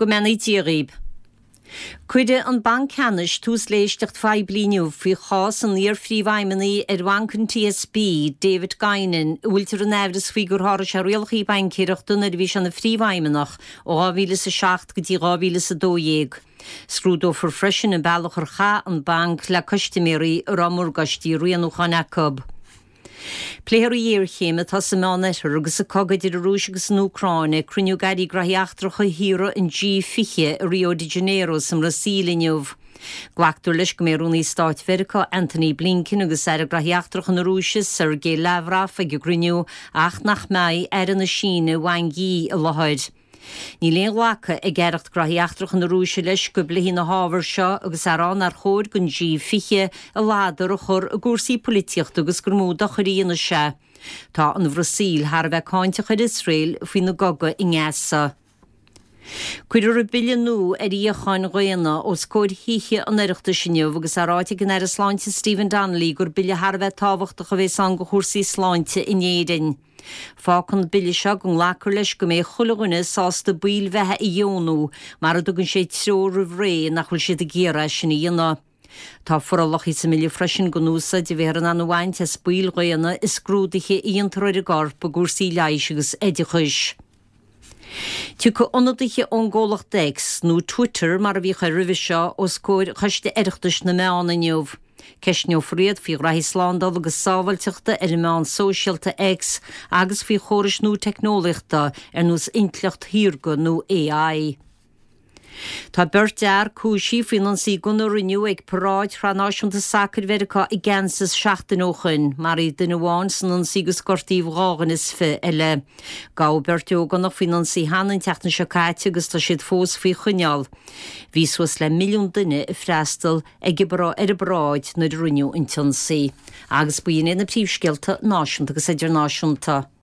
Go mbeannaí Dia dhaoib. Cuirfidh an Banc Ceannais tús le héisteacht phoiblí inniu faoi chás an iar-phríomhfheidhmeannaigh ar bhanc an TSB, David Guinan, a bhfuiltear in aimhreas faoi gur sháraigh sé rialacha baincéireachta nuair a bhí sé ina phríomhfheidhmeannach ó 2007 go dtí 2012. Scrúdófar freisin an bealach ar chaith an banc le custaiméirí a raibh morgáistí rianúcháin acu. Pléifear an ghéarchéim atá sa Meánoirthear agus an cogadh idir an Rúis agus an Úcráin ag cruinniú d'airí graithí eachtracha thíortha an G20 i Rio de Janeiro sa mBrasaíl inniu. Glactar leis go mbeidh Rúnaí Stáit Mheiriceá Antony Blinken agus Aire Graithí Eachtracha na Rúise Sergei Lavrov ag an gcruinniú ach nach mbeidh Aire na Síne Wang Yi i láthair. Níl aon ghlacadh ag Aireacht Graithí Eachtracha na Rúise leis go bpléifí na hábhair seo agus á rá nár chóir don G20 a ladar a chur i gcúrsaí poilitíochta agus gur mó dochair a dhéanfaidh sé. Tá an Bhrasaíl thar a bheith cáinteach ar Iosrael faoina gcogadh i nGaza. Cuirfear an bille nua ar fhíocháin dhaonna os comhair Thithe an Oireachtais inniu agus á ráite ag an Aire Sláinte Stephen Donnelly gur bille thar a bheith tábhachtach a bhéas ann do chúrsaí sláinte in Éirinn. Fágann an bille seo go nglacfar leis go mbeidh chuile dhuine sásta baill bheatha a dheonú mara dtugann sé treoir roimh ré nach bhfuil siad ag iarraidh é sin a dhéanamh. Tá forálacha sa mbille freisin don úsáid a bheifear in ann a bhaint as baill dhaonna i scrúduithe a dhéantar ar an gcorp i gcúrsaí leighis agus oideachais. Tiocfaidh ionadaithe ón gcomhlacht X, nó Twitter mar a bhíodh air roimhe seo, os comhair Choiste Oireachtais na Meán inniu. Ceistneofar iad faoi ghraithí slándála agus sábháilteachta ar an meán sóisialta X agus faoi chórais nua teicneolaíochta ar nós intleacht shaorga nó AI. Tá beirt fhear cúisithe faoin ionsaí gunna a rinneadh ag paráid Shraith Náisiúnta Sacair Mheiriceá i gCansas seachtain ó shoin. Maraíodh duine amháin san ionsaí agus gortaíodh 22 eile. Gabhadh beirt ógánach faoin ionsaí cheana an tseachtain seo caite agus tá siad fós faoi choinneáil. Bhí suas le milliún duine ag freastal ag an ar an bparáid nuair a rinneadh an t-ionsaí. Agus b'in iad na príomhscéalta náisiúnta agus idirnáisiúnta.